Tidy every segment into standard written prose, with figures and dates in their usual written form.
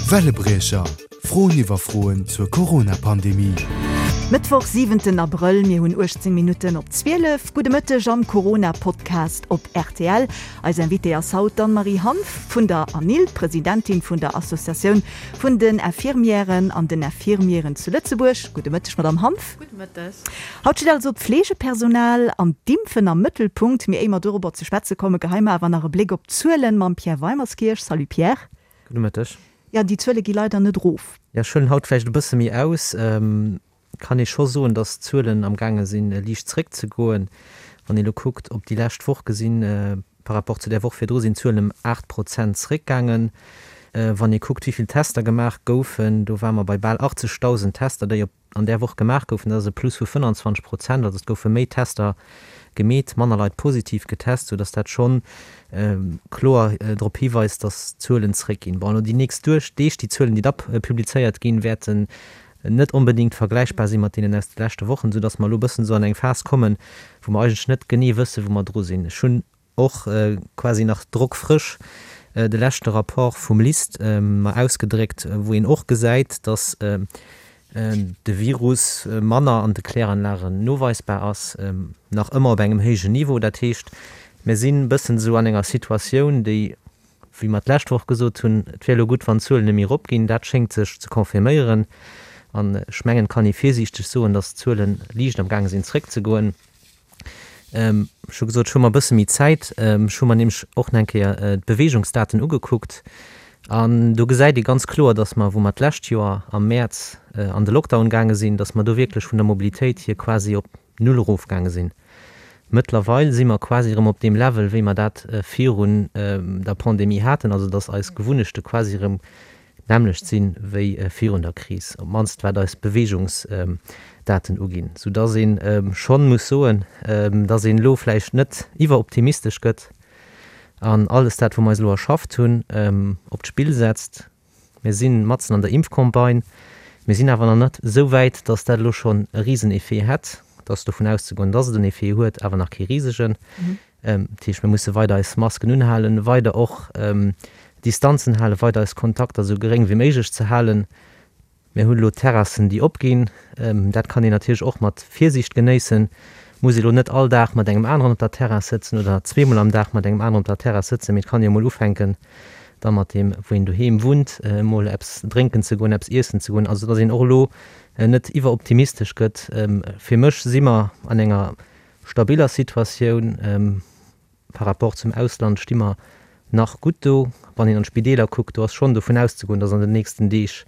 Wellebriecher, Froen iwwer Froen zur Corona-Pandemie. Mëttwoch, siwenten Abrëll, mir hunn 18 Minutten op 12. Gudde Mëtteg am Corona-Podcast op rtl. Eis Invitée ass haut d'Anne-Marie Hanff vun der ANIL, Presidentin vun der Associatioun vun den Infirmièren an den Infirmieren zu Lëtzebuerg. Gudde Mëtteg, Madamm Hanff. Gudde Mëtteg. Haut steet also d'Fleegepersonal an d'Impfen am Mëttelpunkt. Mee éier mer dorobber ze schwätze kommen, geheie mer awer nach e Bléck op d'Zuelen mam Pierre Weimerskirch. Salut Pierre. Gudde Mëtteg. Jo, déi Zuele gi leider net erof. Jo, ech huelen haut vläicht e bësse méi aus. Kann ee scho soen, datt d'Zuelen am gaange sinn liicht zréckzegoen. Wann ee elo kuckt op déi lescht Woch gesinn, par rapport zu där Woch virdru sinn d'Zuelen ëm 8 Prozent zréckgaangen. Wann ee kuckt, wéi vill Tester gemaach goufen, do ware mer bei bal 80.000 Tester, déi op an där Woch gemaach goufen, dat ass e Plus vu 25 Prozent, also et goufe méi Tester gemeet, manner Leit positiv getest, sou datt dat schonn kloer drop hiweist, datt d'Zuelen zréckginn. Bon, elo déi nächst Deeg, déi Zuelen, déi da publizéiert ginn, wäerten net onbedéngt vergläichbar si mat deenen aus de leschte Wochen, sou datt mer elo e bëssen esou an eng Phas kommen, wou mer eigentlech net genee wëssen, wou mer dru sinn. Ech hunn och quasi nach drockfrësch de leschte Rapport vum LIST mer ausgedréckt, wou een och gesäit, datt de Virus manner an de Kläranlagen noweisbar ass, nach ëmmer op engem héijen Niveau. Dat heescht, mir sinn e bëssen esou an enger Situatioun, déi, wéi mer d'lescht Woch gesot hunn, et wär elo gutt, wann d'Zuelen net méi eropginn, dat schéngt sech ze confirméieren. An ech mengen, et kann ee virsiichteg soen, datt d'Zuele liicht am gaange sinn zréckzegoen. Ech hu gesot, ech hu mer e bësse méi Zäit. Ech hu mer nämlech och nach eng Kéier d'Beweegungsdaten ugekuckt. An do gesäit ee ganz kloer, dass mer, wou mer d'lescht Joer am Mäerz an de Lockdown gaange sinn, dass mer do wierklech vun der Mobilitéit hier quasi op null erofgaange sinn. Mëttlerweil si mer quasi erëm op deem Level, wéi mer dat virun der Pandemie haten, also dass eis Gewunnechte quasi erëm d'nämmlecht sinn wéi virun der Kris, op d'mannst wat eis Beweegungsdaten uginn, soudass ee schonn muss soen, dass een elo vläicht net iwweroptimistesch gëtt an alles dat, wou mer eis elo erschafft hunn, op d'Spill setzt. Mir si matzen an der Impfcampagne, mir sinn awer nach net esou wäit, dass dat elo schonn e Riseneffet hätt. Et ass dovun auszegoen, dass et en Effet huet, awer nach kee risegen. Dat heescht, mir musse weider eis Masken unhalen, weider och Distanzen halen, weider eis Kontakter esou geréng wéi méiglech ze halen. Mir hunn elo Terrassen, déi opginn. Dat kann een natierlech och mat Virsiicht genéissen. Muss ee elo net all Dag mat engem aneren op der Terrass sëtzen oder zweemol am Dag mat engem aneren op der Terrass sëtzen, mee et kann ee jo mol ufänken, da mat deem, wou een doheem wunnt, emol eppes drénken ze goen, eppes iessen ze goen. Also datt een och elo net iwweroptimistesch gëtt. Fir mech si mer an enger Stabiller Situatioun par rapport zum Ausland sti mer nach gutt do. Wann een an d'Spideeler kuckt, do ass schonn dovun auszegoen, datt an den nächsten Deeg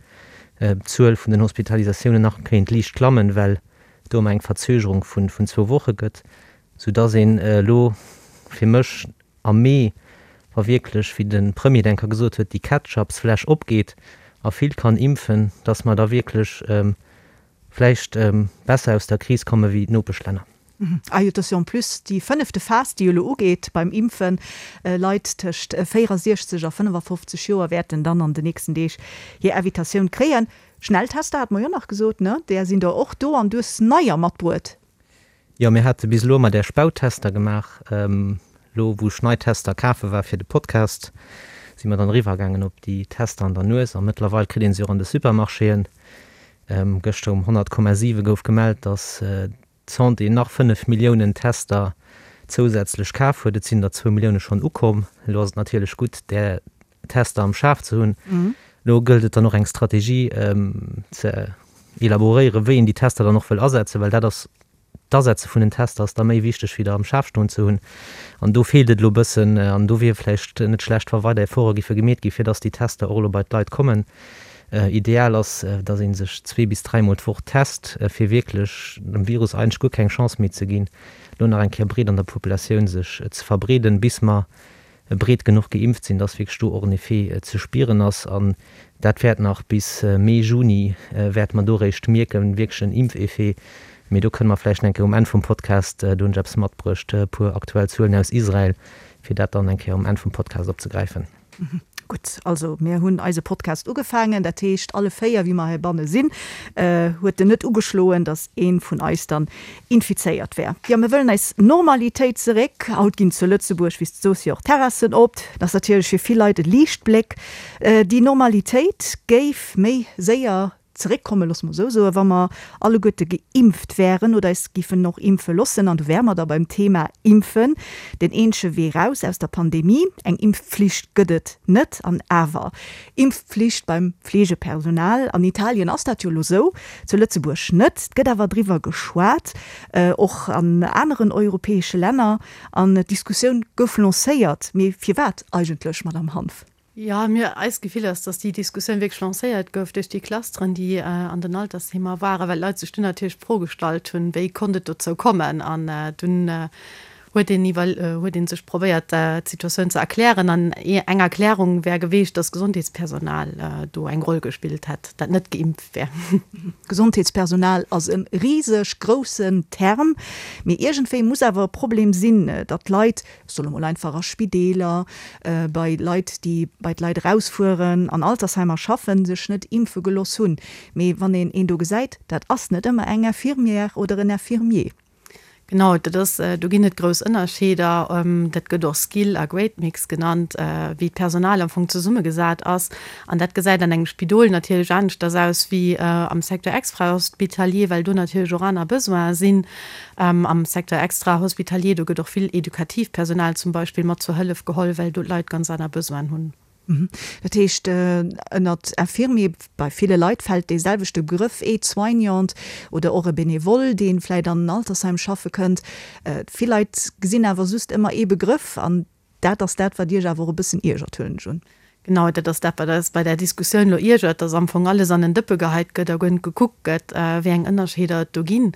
d'Zuel vun den Hospitalisatiounen nach kéint liicht klammen, well do ëmmer eng Verzögerung vun zwou Woche gëtt, soudatt een elo fir mech am Mee, wa wierklech, wéi de Premier et eng Kéier gesot huet, déi Ketchupsfläsch opgeet a vill kann impfen, datt mer da wierklech vläicht besser aus der Kris komme wéi d'Nopeschlänner. Ah jo, et ass jo en plus déi fënnefte Phas, déi elo ugeet beim Impfen. Leit tëscht 64 a 55 Joer wäerten dann an den nächsten Deeg hir Invitatioun kréien. Schnelltester hate mer jo nach gesot, ne? Där sinn der och do an du hues neier matbruet. Jo, mir hate bis elo ëmmer där Spauttester gemaach. Elo wou ech nei Tester kafe war fir de Podcast, si mer dann eriwwer gaangen op déi Tester an der Nues a mëttlerweil kritt een se och an de Supermarchéen. Gëschter um 100,7 gouf gemellt, datt d'Santé nach 5 Milliounen Tester zousätzlech kaf huet. Et sinn der zwou Millioune schonn ukomm. Elo ass et natierlech gutt, där Tester am Schaf ze hunn. Elo gëllt et dann och eng Strategie ze elaboréieren, wéi een déi Tester dann och wëll asetzen, well dat ass, d'Asetze vun den Tester ass da méi wichteg wéi der am Schaf stoen ze hunn. An do feelt et elo e bëssen an do wier vläicht net schlecht, wa weider Efforte giffe gemeet gi fir datt déi Tester och elo bei d'Leit kommen. Ideal ass, datt ee sech zwee bis dräimol d'Woch test, fir wierklech dem Virus eigentlech guer keng Chance méi ze ginn, elo nach eng Kéier breet an der Populatioun sech ze verbreeden, bis mer breet genuch geimpft sinn, dass wierklech do och en Effet ze spieren ass. An dat wäert nach bis Mee, Juni wäerte mer do eréischt mierken, wierklech en Impfeffet. Mee do kënne mer vläicht nach eng Kéier um Enn vum Podcast, do hunn ech eppes matbruecht, e puer aktuell Zuelen aus Israel, fir dat dann eng Kéier um Enn vum Podcast opzegräifen. Gutt, also mir hunn eise Podcast ugefaangen, dat heescht alle 4, wéi mer heibanne sinn, huet en net ugeschloen, datt ee vun eis dann infizéiert wär. Jo, mir wëllen eis Normalitéit zeréck. Haut ginn zu Lëtzebuerg, wéi s de soos, jo och d'Terrassen op. Dat ass natierlech fir vill Leit e Liichtbléck. Déi Normalitéit géif méi séier zeréckkommen, loosse mer esou soen, wa mer alleguerte geimpft wären oder eis giffen och impfe loossen. An do wäre mer da beim Thema Impfen, den eenzege Wee raus aus der Pandemie. Eng Impfpflicht gëtt et net, an awer Impfpflicht beim Fleegepersonal. An Italien ass dat jo elo esou, zu Lëtzebuerg net. Et gëtt awer driwwer geschwat, och an aneren europäesche Länner, an d'Diskussioun gouf lancéiert. Mee firwat eigentlech, Madamm Hanff? Jo, mir, eist Gefill ass, dass déi Diskussioun wierklech lancéiert gouf duerch déi Clusteren, déi an den Altersheemer waren, well d'Leit sech dunn natierlech d'Fro gestallt hunn, wéi konnt et dozou kommen. An dunn huet een iwwer, huet ee sech probéiert, d'Situatioun ze erklären. An eng Erklärung wär geweecht, dass d'Gesondheetspersonal do eng Roll gespillt hätt, dat net geimpft wär. Gesondheetspersonal ass e riseg groussen Term, mee iergendwéi muss awer e Problem sinn, datt d'Leit ech soe mol einfach a Spideeler, bei Leit, déi bei d'Leit erausfueren, an Altersheimer schaffen, sech net impfe geloss hunn. Mee wann een een do gesäit, dat ass net ëmmer eng Infirmière oder en Infirmier. Genau, dat ass, do ginn et grouss Ënnerscheeder. Dat gëtt och Skill a Grade Mix genannt, wéi d'Personal am Fong zesummegesat ass. An dat gesäit an engem Spidol natierlech aneschters aus wéi am Secteur extrahospitalier, well do natierlech och aner Besoine sinn. Am Secteur extra-hospitalier, do gëtt och vill edukatiivt Personal zum Beispill mat zur Hëllef geholl, well do d'Leit ganz aner Besoinen hunn. Dat heescht, ënnert Infirmier, bei ville Leit fält dee selwechte Begrëff, Aide-soignant oder och e Benevole, dee vläicht an en Altersheim schaffe kënnt. Vill Leit gesinn awer just ëmmer ee Begrëff an Dat ass dat, wat Iech awer och e bëssen iergert, huelen ech un. Genau, dat ass dat, wat eis bei där Diskussioun elo iergert, dass am Fong alles an en Dëppe geheit gëtt a guer net gekuckt gëtt, wéi eng Ënnerscheeder et do ginn.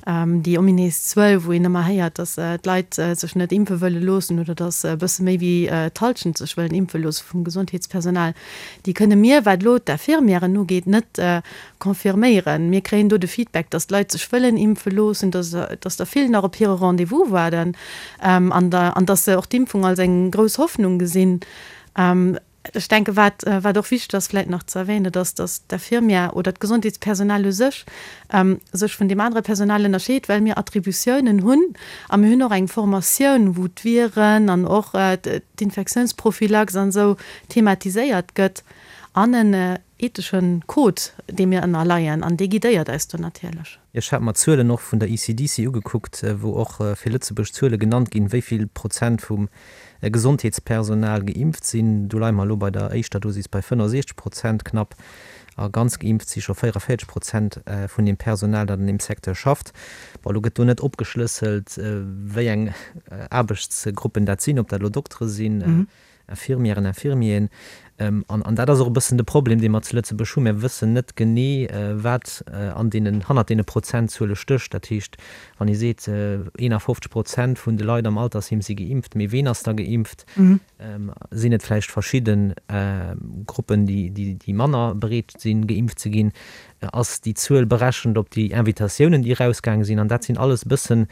Déi ominéis Zuel, wou een ëmmer héiert, dass d'Leit sech net impfe wëlle loossen oder dass e bësse méi wéi d'Hallschent sech wëllen impfe loosse vum Gesondheetspersonal, déi kënne mir, wat elo d'Infirmièren ugeet, net Confirméieren. Mir kréien do de Feedback, dass d'Leit sech wëllen impfe loossen, dass dass der vill nach op hire Rendez-vous waarden an an dass se och d'Impfung als eng grouss Hoffnung gesinn. Ech denke wat wat och wichteg ass vläicht nach ze erwähnen, dat ass, dass d'Infirmière oder d'Gesondheetspersonal u sech sech vun deem anere Personal ënnerscheet, well mir Attributiounen hunn a mir hunn och eng Formatioun, wou d'Viren an och d'Infektiounsprophylax an esou thematiséiert gëtt an en Etheschen Code, deem mir ënnerleien, an dee guidéiert eis do natierlech. Ech hat mer d'Zuelen och vun der ECDC ugekuckt, wou och fir Lëtzebuerg Zuele genannt ginn, wéi vill Prozent vum Gesondheetspersonal geimpft sinn. Do leie mer elo bei der éischter Dosis bei 65 Prozent knapp a ganz geimpft si scho 44 Prozent vun deem Personal, dat an deem Secteur schafft. Bon, elo gëtt do net opgeschlësselt, wéi eng Aarbechtsgruppen dat sinn, ob dat elo Doktere sinn, Infirmièren, Infirmieren. An, an dat ass och e bëssen de Problem, dee mer zu Lëtzebuerg hunn. Mir wëssen net genee, wat an deenen, hannert deene Prozentzuele stécht. Dat heescht, wann ee seet, 51 Prozent vun de Leit am Altersheem si geimpft, mee ween ass da geimpft? Sinn et vläicht verschidde Gruppen, déi, déi, déi manner bereet sinn, geimpft ze ginn? Ass déi Zuel berechent op déi Invitatiounen, déi erausgaange sinn? An dat sinn alles e bëssen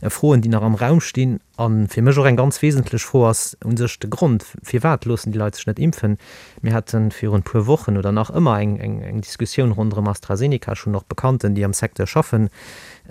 Froen, déi nach am Raum stinn. A fir mech och eng ganz wesentlech Fro ass u sech de Grond, Firwat loossen déi Leit sech net impfen? Mir hate virun e puer Wochen oder nach ëmmer eng Diskussioun ronderëm AstraZeneca. Ech hunn och Bekannten, déi am Secteur schaffen,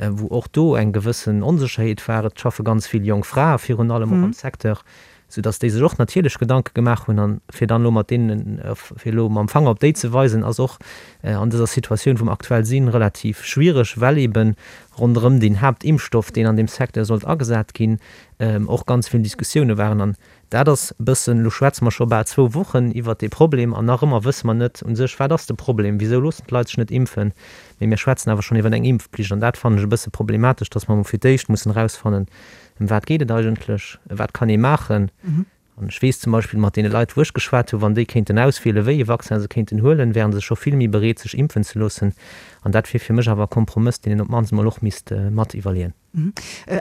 wou och do eng gewëssen Onsécherheet war. Et schaffe ganz vill jonk Frae virun allem och am Secteur, soudass déi sech och natierlech Gedanke gemaach hunn. An fir dann elo mat deenen, fir elo mam Fanger op déi ze weisen, ass och an dëser Situatioun, wou mer aktuell sinn, relativ schwiereg, well eeben ronderëm deen Haaptimpfstoff, deen an deem Secteur sollt agesat ginn, och ganz vill Diskussioune waren. An dat ass e bëssen, elo schwätze mer scho bal zwou Wochen iwwert dee Problem an nach ëmmer wësse mer net u sech, wat ass de Problem, wisou loossen d'Leit sech net impfen, mee mir schwätzen awer schonn iwwer eng Impfpflicht. An dat fannen ech e bësse problematesch, dass mer emol fir d'éischt mussen erausfannen, ëm wat geet et eigentlech, wat kann ee maachen. An ech weess zum Beispill mat deene Leit, wou ech geschwat hunn, wann déi kéinten auswielen, wéi ee Vaccin se kéinten huelen, wäre se scho vill méi bereet, sech impfen ze loossen. An dat wier fir mech awer e Kompromëss, deen een op d'mannst emol och misst mat iwwerleeën.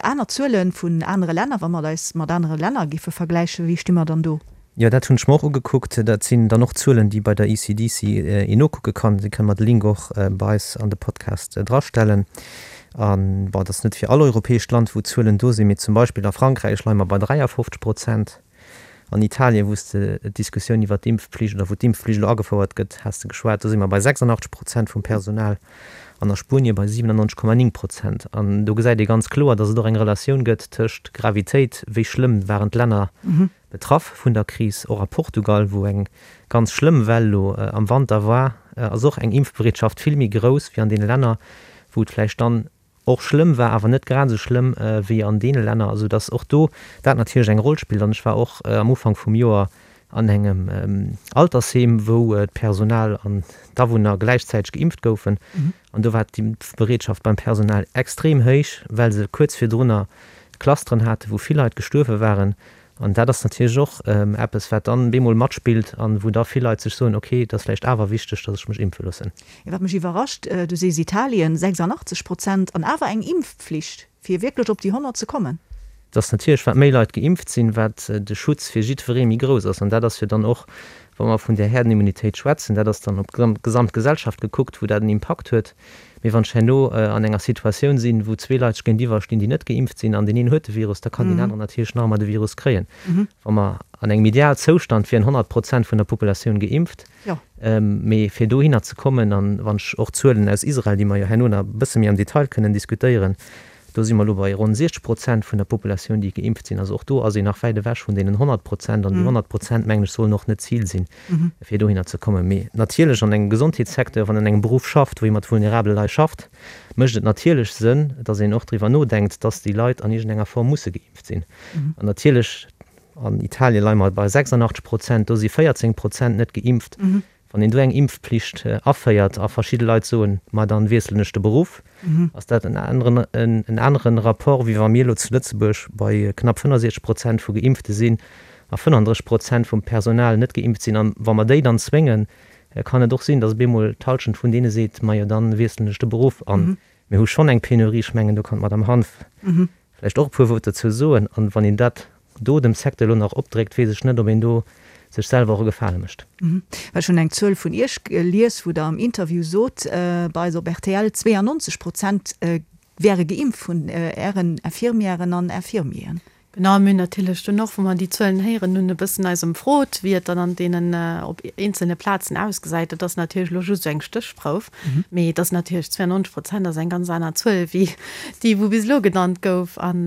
Aner Zuele vun anere Länner, wa mer eis mat anere Länner géife vergläichen, wéi sti mer dann do? Jo, dat hunn ech mer och ugekuckt. Dat sinn dann och Zuelen, déi bei der ECDC een nokucke kann. Si kënne mer de Link och bei eis an de Podcast drastellen. A bon, et ass net fir all europäescht Land, wou d'Zuelen do sinn, mee zum Beispill a Frankräich leie mer bei 53 Prozent. An Italien, wou s de d'Diskussioun iwwert d'Impfpflicht oder wou d'Impfpflicht elo agefouert gëtt, has de geschwat, do si mer bei 86 Prozent vum Personal an a Spuenie bei 97,9 Prozent. An do gesäit ee ganz kloer, datt et och eng Relatioun gëtt tëscht Gravitéit, wéi schlëmm waren d'Länner betraff vun der Kris, och a Portugal, wou eng ganz schlëmm Well elo am Wanter war, ass och eng Impfbereetschaft vill méi grouss wéi an deene Länner, wou et vläicht dann och schlëmm war, awer net grad esou schlëmm wéi an deene Länner, esou dass och do dat natierlech eng Roll spillt. An ech war och am Ufank vum Joer an engem Altersheem, wou d'Personal an d'Awunner gläichzäiteg geimpft goufen, an do war d'Impfbereetschaft beim Personal extrem héich, well se kuerz virdrunner Clusteren haten, wou vill Leit gestuerwe waren. An dat ass natierlech och eppes, wat dann bemol matspillt an wou da vill Leit sech soen, ok, et ass vläicht awer wichteg, datt ech mech impfe loossen. Wat mech iwwerrascht, du sees Italien, 86 Prozent an awer eng Impfpflicht, fir wierklech op déi 100 ze kommen. Et ass natierlech, wat méi Leit geimpft sinn, wat de Schutz fir jiddweree méi grouss ass. An dat ass jo dann och, wa mer vun där Herdenimmunitéit schwätzen, dat ass dann op d'gesamt Gesellschaft gekuckt, wou dat en Impakt huet. Mee wann ech herno an enger Situatioun sinn, wou zwee Leit sech géintiwwer stinn, déi net geimpft sinn, an deen een huet de Virus, da kann deen aneren natierlech nach ëmmer de Virus kréien. Wa mer an engem Idealzoustand wieren 100 Prozent vun der Populatioun geimpft. Mee fir dohinner ze kommen, an wann ech och d'Zuelen aus Israel, déi mer jo herno nach e bësse méi am Detail kënnen diskutéieren, Do si mer elo bei ronn 60 Prozent vun der Populatioun, déi geimpft sinn. Also och do ass een nach wäit ewech vun deenen 100 Prozent. An déi 100 Prozent, mengen ech, sollen och net d'Zil sinn, fir dohinner ze kommen. Mee natierlech an engem Gesondheetssecteur, wann een an engem Beruff schafft, wou ee mat vulnerabele Leit schafft, mécht et natierlech Sënn, dass een och driwwer nodenkt, dass déi Leit an iergendenger Form musse geimpft sinn. An natierlech, an Italien leie mer bei 86 Prozent, do si 14 Prozent net geimpft. Wann een do eng Impfpflicht aféiert a verschidde Leit soen, ma dann wiesselen ech de Beruff, ass dat en aneren, en aneren Rapport, wéi wa mir elo zu Lëtzebuerg bei knapp 65 Prozent vu Geimpfte sinn a 35 Prozent vum Personal net geimpft sinn. An wa mer déi dann zwéngen, kann et och sinn, datt op eemol d'Halschent vun deene seet, majo dann wiesselen ech de Beruff. An mir hu schonn eng Penurie, ech mengen do kann d'Madame Hanff vläicht och e puer Wuert dozou soen. An wann een dat do dem Secteur elo nach opdréckt, weess ech net, ob een do sech selwer och e Gefale mécht. Well ech hunn eng Zuel vun Iech gelies, wou Der am Interview sot, bei eis op rtl, 92 Prozent wäre geimpft vun Ären Infirmièren an Infirmieren. Genau, mir hunn natierlech dunn och, wou mer déi Zuelen héieren hunn, e bëssen eis ëmfrot, wéi et dann an deenen, op eenzelne Plazen ausgesäit. Dat ass natierlech elo just esou eng Stéchprouf, mee et ass natierlech, 92 Prozent ass eng ganz aner Zuel wéi déi, wou bis elo genannt gouf. An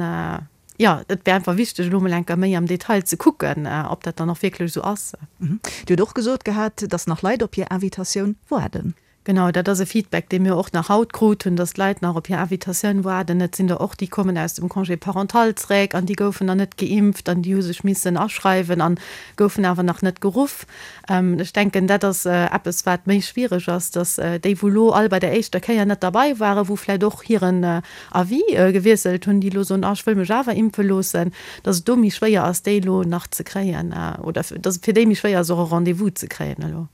jo, et wär einfach wichteg, elo emol eng Kéier méi am Detail ze kucken, ob dat dann och wierklech esou ass. Dir hutt och gesot gehat, dass nach Leit op hir Invitatioun waarden. Genau, dat ass e Feedback, dee mir och nach haut krut hunn, dass d'Leit nach op hir Invitatioun waarden. Et sinn der och, déi kommen aus dem Congé parental zeréck an déi goufen nach net geimpft an déi hu sech missen aschreiwen an goufen awer nach net geruff. Ech denken, dat ass eppes, wat méi schwiereg ass, dass déi, wou elo all bei der éischter Kéier net derbei waren, wou vläicht och hiren Avis gewiesselt hunn, déi elo soen, ah, ech wëll mech awer impfe loossen, dass et do méi schwéier ass, déi elo nach ze kréien oder dass et fir déi méi schwéier ass, och e Rendez-vous ze kréien elo.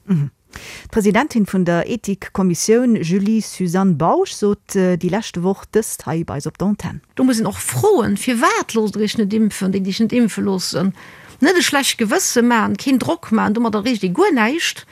D'Presidentin vun der Ethikkommissioun Julie-Suzanne Bausch sot déi leschte Woch dëst hei bei eis op der Antenn. Do muss een och froen, Firwat loosst Der Iech net impfen, déi, déi sech net impfe loossen? Net e schlecht Gewësse maachen, keen Drock maachen, domat erreecht ee guer näischt.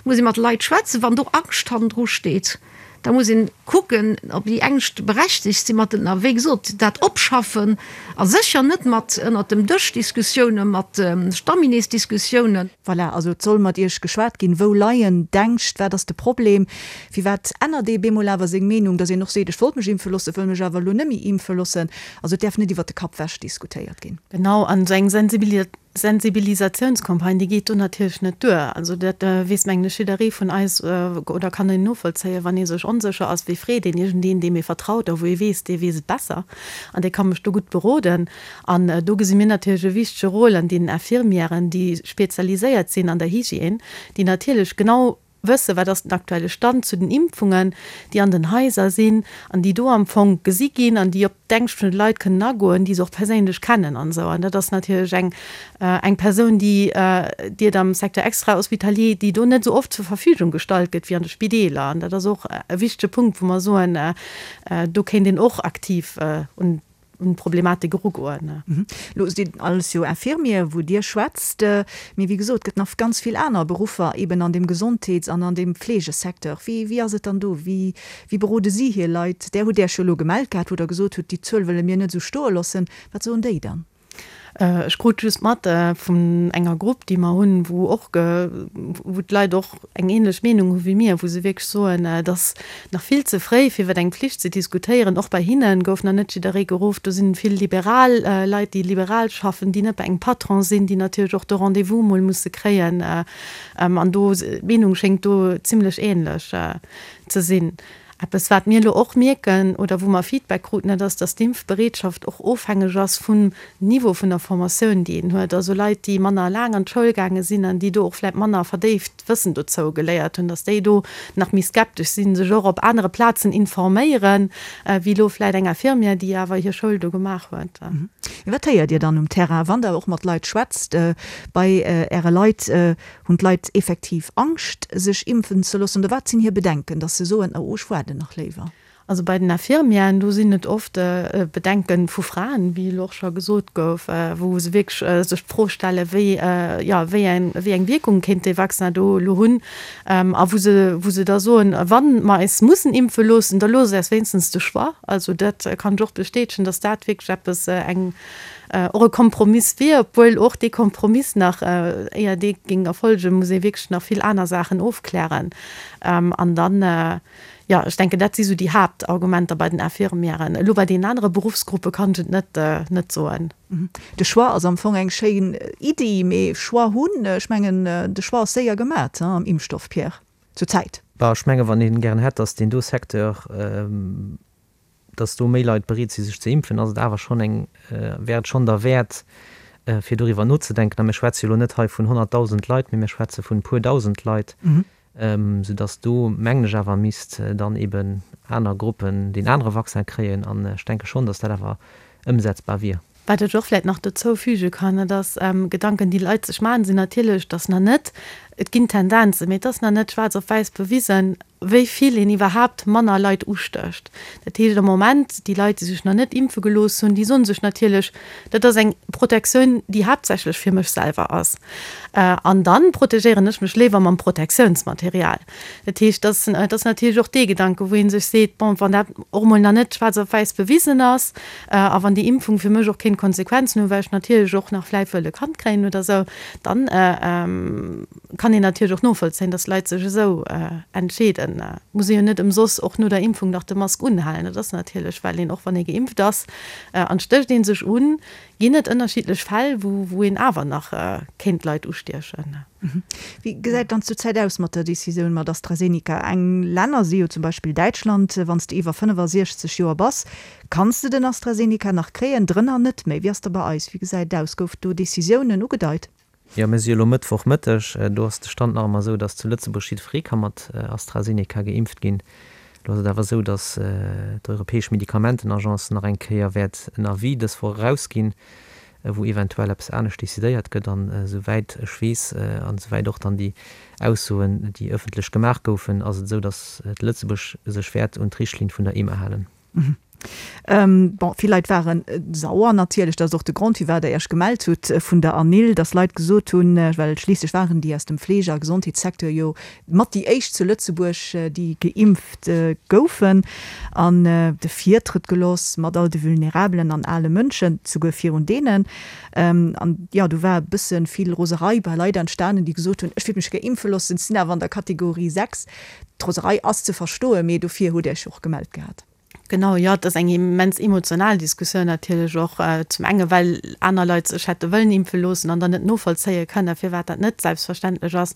Et muss ee mat de Leit schwätzen. Wann do Angscht hannendru steet, da muss een kucken, ob déi Ängscht berechtegt sinn, mat den, a wéi gesot, dat opschaffen a sécher net mat ënnert dem Dësch Diskussiounen, mat Stammineesdiskussiounen. Voilà, also et soll mat Iech geschwat ginn. Wou leien d'Ängscht? Wat ass de Problem? Firwat ännert ee bemol awer seng Meenung, datt een och seet, ech wollt mech impfe loossen, wëll mech awer elo net méi impfe loossen? Also et däerf net iwwert de Kapp wech diskutéiert ginn. Genau, an esou eng Sensibilisatiounscampagne, déi geet do natierlech net duer. Also dat weess, mengen ech, jidderee vun eis oder kann een novollzéien, wann ee sech onsécher ass, wéi freet een iergendeen, deem ee vertraut a wou ee weess, dee weess et besser an dee ka mech do gutt beroden. An do gesi mir natierlech e wichtege Rôle an deenen Infirmièren, déi spezialiséiert sinn an der Hygiène, déi natierlech genau wëssen, wat ass den aktuelle Stand zu den Impfungen, déi an den Haiser sinn an déi do am Fong gesi ginn an déi op d'Ängscht vun de Leit kënnen agoen, déi se och perséinlech kennen an esou. An dat ass natierlech eng, eng Persoun, déi, déi et am Secteur extra-hospitalier, déi do net esou oft zur Verfügung gestallt gëtt wéi an de Spideeler. An dat ass och e wichtege Punkt, wou mer soen, do kéint een och aktiv un un d'Problematik erugoen. Elo sinn alles jo Infirmier, wou Dir schwätzt, mee wéi gesot, et gëtt nach ganz vill aner Beruffer eben an deem Gesondheets an an deem Fleegesecteur. Wéi, wéi ass et dann do? Wéi, wéi berode si hir Leit? Där hutt Äech jo elo gemellt gehat, wou Der gesot hutt, déi Zuel wëlle mir net esou stoe loossen. Wat soen déi dann? Ech krut just mat vun enger Grupp, déi mer hunn, wou och, wou d'Leit och eng ähnlech Meenung hu wéi mir, wou se wierklech soen, et ass nach vill ze fréi, fir iwwer eng Pflicht ze diskutéieren. Och bei hinne gouf nach net jidderee geruff. Do sinn vill liberal Leit, déi liberal schaffen, déi net bei engem Patron sinn, déi natierlech och de Rendez-vous mol musse kréien. An do, d'Meenung schéngt do zimlech ähnlech ze sinn. Eppes, wat mir elo och mierken oder wou mer Feedback kruten, dat ass, dass d'Impfbereetschaft och ofhängeg ass vum Niveau vun der Formatioun, déi een huet. Also Leit, déi manner laang an d'Schoul gaange sinn an déi do och vläicht manner verdéift Wëssen dozou geléiert hunn, dass déi do nach méi skeptesch sinn, sech och op anere Plazen informéieren, wéi elo vläicht eng Infirmière, déi awer hir Schoul do gemaach huet. Wat héiert Dir dann um Terrain, wann Der och mat Leit schwätzt bei Äre Leit? Hunn d'Leit effektiv Angscht, sech impfen ze loossen, oder wat sinn hir Bedenken, datt se soen, oh, ech waarden nach léiwer? Also bei den Infirmièren, do sinn et oft Bedenke vu Fraen, wéi elo och scho gesot gouf, wou se wierklech sech d'Fro stellen, wéi, jo, wéi eng, wéi eng Wierkung kéint dee Vaccin do elo hunn. A wou se, wou se da soen, wa mer eis mussen impfe loossen, da loosst äis wéinstens de Choix. Also dat kann ech och bestätegen, datt dat wierklech eppes, eng, och e Kompromiss wier, obwuel och dee Kompromiss nach, éier dee géing erfolgen, muss ee wierklech nach vill aner Saachen ofklären. An dann, jo, ech denken, dat si sou déi Haaptargumenter bei den Infirmièren. Elo bei deenen anere Beruffsgruppe kann ech et net, net soen. De Choix ass am Fong eng schéin Iddi, mee Choix hunn, ech mengen, de Choix ass séier gemat am Impfstoff, Pierre, zur Zäit. Bah, ech menge wann ee gären hätt, datt deen do Secteur, dass do méi Leit bereet si sech ze impfen, ass et awer schonn eng, wär et schonn derwäert, fir doriwwer nozedenken. A mir schwätze jo elo net hei vun 100.000 Leit, mee mir schwätze vun e puer dausend Leit, soudass do, mengen ech, awer misst dann eben aner Gruppen deen anere Vaccin kréien. An ech denke schonn, dass dat awer ëmsetzbar wier. Wat ech och vläicht nach dozou füge kann, dat ass, Gedanken, déi Leit sech maachen, sinn natierlech, dass nach net, et ginn Tendenzen, mee et ass nach net schwaarz op wäiss bewisen, wéi vill een iwwerhaapt manner Leit ustécht. Dat heescht am Moment, déi Leit, déi sech nach net impfe gelooss hunn, déi soen sech natierlech, dat ass eng Protektioun, déi haaptsächlech fir mech selwer ass, an da protegéieren ech mech léiwer mam Protektiounsmaterial. Dat heescht, dat ass natierlech och dee Gedanke, wou ee sech seet, bon, wann dat och emol nach net schwaarz op wäiss bewisen ass, A wann déi Impfung fir mech och kéint Konsequenzen hunn, well ech natierlech och nach vläicht wëll e Kand kréien oder esou, dann kann een natierlech och novollzéien, dass Leit sech esou entscheeden. Muss ee jo net ëmsoss och no der Impfung nach de Mask unhalen. Dat ass natierlech, well een och wann ee geimpft ass an stécht ee sech un, ginn et ënnerschiddlech Fäll, wou een awer nach kéint Leit ustiechen. Wéi gesäit dann zurzäit aus mat der Decisioun mat AstraZeneca? Eng Länner si jo zum Beispill Däitschland, wann s de iwwer 65 Joer bass, kanns de den AstraZeneca nach kréien, drënner net méi. Wéi ass da bei eis? Wéi gesäit et aus? Gouf do Decisiounen ugedeit? Jo, mir si jo elo Mëttwochmëtteg. Do ass de Stand nach ëmmer esou, datt zu Lëtzebuerg jiddweree ka mat AstraZeneca geimpft ginn. Elo ass et awer esou, datt d'Europäesch Medikamentenagence nach eng Kéier wäert en Avis dës Woch erausginn, wou eventuell eppes anescht decidéiert gëtt. An esouwäit ech weess an esouwäit och dann déi Aussoen, déi ëffentlech gemaach goufen, ass et esou, datt Lëtzebuerg sech wäert un d'Richtlinn vun der EMA halen. Bon, vill Leit ware sauer natierlech. Dat ass och de Grond, firwat Der Iech gemellt hutt vun der ANIL, dass Leit gesot hunn, well schliisslech waren déi aus dem Fleege a Gesondheetssecteur jo mat déi éischt zu Lëtzebuerg, déi geimpft goufen, an de Virtrëtt gelooss mat all de vulnerabelen an ale Mënschen, souguer virun deenen. An jo, do war e bësse vill Roserei bei Leit entstanen, déi gesot hunn, ech wéilt mech gär impfe loossen, sinn awer an der Kategorie 6. D'Roserei ass ze verstoen, mee dofir hutt Dir Iech jo och gemellt gehat. Genau, jo, et ass eng immens emotional Diskussioun natierlech och. Zum enge well aner Leit sech hätte wëllen impfe loossen an dann net novollzéie kënnen, firwat dat net selbstverständlech ass.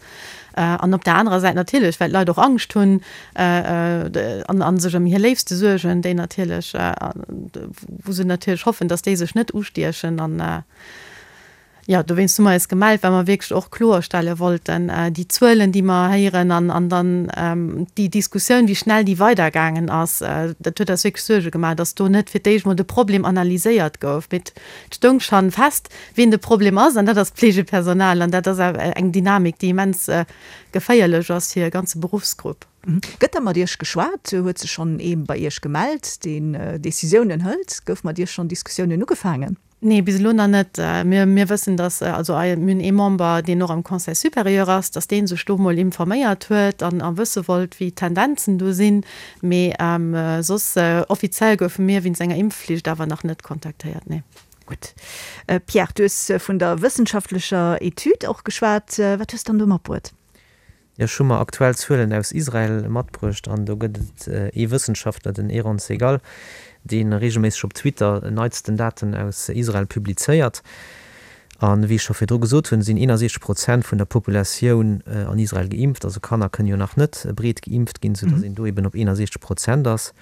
An op der anerer Säit natierlech, well d'Leit och Angscht hunn an a sech ëm hir Léifste suergen, déi natierlech, wou se natierlech hoffen, datt déi sech net ustiechen. An Jo, dowéinst hu mer eis gemellt, well mer wierklech och kloerstelle wollten, déi Zuelen, déi mer héieren an an dann déi Diskussioun, wéi schnell déi weidergaangen ass, dat huet eis wierklech Suerge gemaach, dass do net fir d'éischt mol de Problem analyséiert gouf, mee et stoung schonn fest, wien de Problem ass, an dat ass d'Pflegepersonal. An dat ass awer eng Dynamik, déi immens geféierlech ass fir e ganze Beruffsgrupp. Gëtt da mat Iech geschwat? Huet sech schonn ee bei Iech gemellt, deen Decisiounen hëlt? Gouf mat Iech schonn Diskussiounen ugefaangen? Nee, bis elo nach net. Mir, mir wëssen, dass, also mir hunn ee Member, deen och am Conseil supérieur ass, dass dee sech do mol informéiert huet an a wësse wollt, wéi d'Tendenzen do sinn. Mee soss offiziell goufe mir wéinst enger Impfflicht awer nach net kontaktéiert, nee. Gutt. Pierre, du hues vun der wëssenschaftlecher Etüd och geschwat. Wat hues de dann do matbruet? Jo, ech hu mer aktuell Zuelen aus Israel matbruecht an do gëtt et ee Wëssenschaftler, den Eran Segal, dee reegelméisseg op Twitter neitsten Daten aus Israel publizéiert. A wéi ech scho virdru gesot hunn, sinn 61 Prozent vun der Populatioun an Israel geimpft. Also Kanner kënnen jo nach net breet geimpft ginn, soudass een do eben op 61 Prozent ass.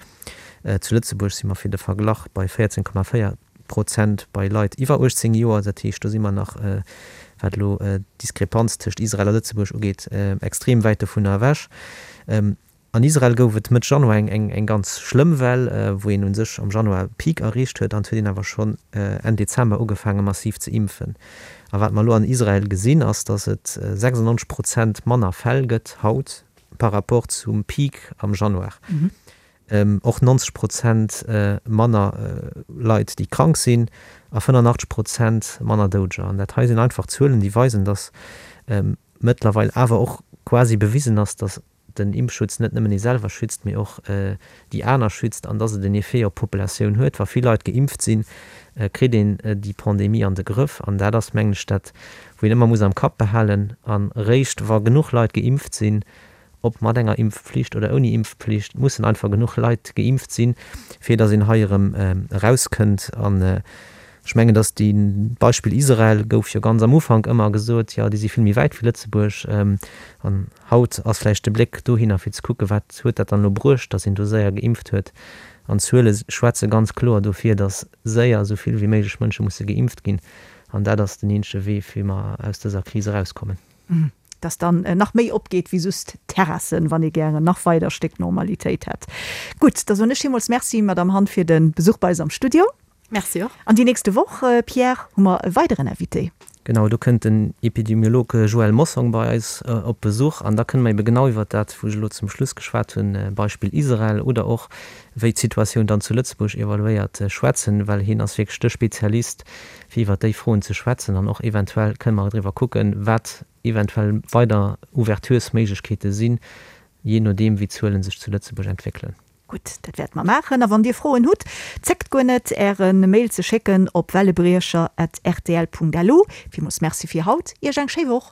Zu Lëtzebuerg si mer fir de Verglach bei 14,4 Prozent bei Leit iwwer 18 Joer. Dat heescht, do si mer nach, wat elo d'Diskrepanz tëscht Israel a Lëtzebuerg ugeet, extrem wäit dovunner ewech. An Israel gouf et Mëtt Januar eng ganz schlëmm Well, wou een u sech am Januar e Peak erreecht huet. An et huet een awer schonn Enn Dezember ugefaange massiv ze impfen. A wat mer elo an Israel gesinn, ass, datt et 96 Prozent manner Fäll gëtt haut par rapport zum Peak am Januar. Och 90 Prozent manner Leit, déi krank sinn a 85 Prozent manner Doudeger. An dat hei sinn einfach Zuelen, déi weisen, datt mëttlerweil awer och quasi bewisen ass, datt den Impfschutz net nëmmen ee selwer schützt, mee och déi aner schützt an datt et en Effet op d'Populatioun huet. Wa vill Leit geimpft sinn, kritt een déi Pandemie an de Grëff. An dat ass, mengen ech, dat, wou een ëmmer muss am Kapp behalen. A réischt wa genuch Leit geimpft sinn, ob mat enger Impfpflicht oder ouni Impfpflicht, mussen einfach genuch Leit geimpft sinn, fir datt een hei erëm erauskënnt. An ech mengen, datt déi, d'Beispill Israel gouf jo ganz am Ufank ëmmer gesot, jo, déi si vill méi wäit wéi Lëtzebuerg. An haut ass vläicht de Bléck dohinner, fir ze kucken, wat huet dat dann elo bruecht, datt een do séier geimpft huet. An d'Zuele schwätze ganz kloer dofir, datt séier esou vill wéi méiglech Mënsche musse geimpft ginn. An dat ass den eenzege Wee, wéi mer aus dëser Kris erauskommen. Dass dann nach méi opgeet wéi just Terrassen, wann ee gären nach weider Stéck Normalitéit hätt. Gutt, da soen ech villmools Merci, Madamm Hann, fir de Besuch bei eis am Studio. Merci och. An déi nächste Woch, Pierre, hu mer e weideren Invité. Genau, do kënnt den Epidemiolog Joël Mossong bei eis op Besuch an da kënne mer ebe genau iwwert dat, wou ech elo zum Schluss geschwat hunn, Beispill Israel oder och wéi d'Situatioun dann zu Lëtzebuerg evaluéiert, schwätzen, well hien ass wierklech de Spezialist fir iwwert déi Froen ze schwätzen an och eventuell kënne mer driwwer kucken, wat eventuell weider Ouverturesméiglechkeete sinn, jee nodeem wéi d'Zuele sech zu Lëtzebuerg entwéckelen. Gutt, dat wäerte mer maachen. A wann Dir Froen hutt, zéckt guer net, Äre Mail ze schécken op wellebriecher at rtl Punkt lu. Villmools Merci fir haut, Iech eng schéi Woch.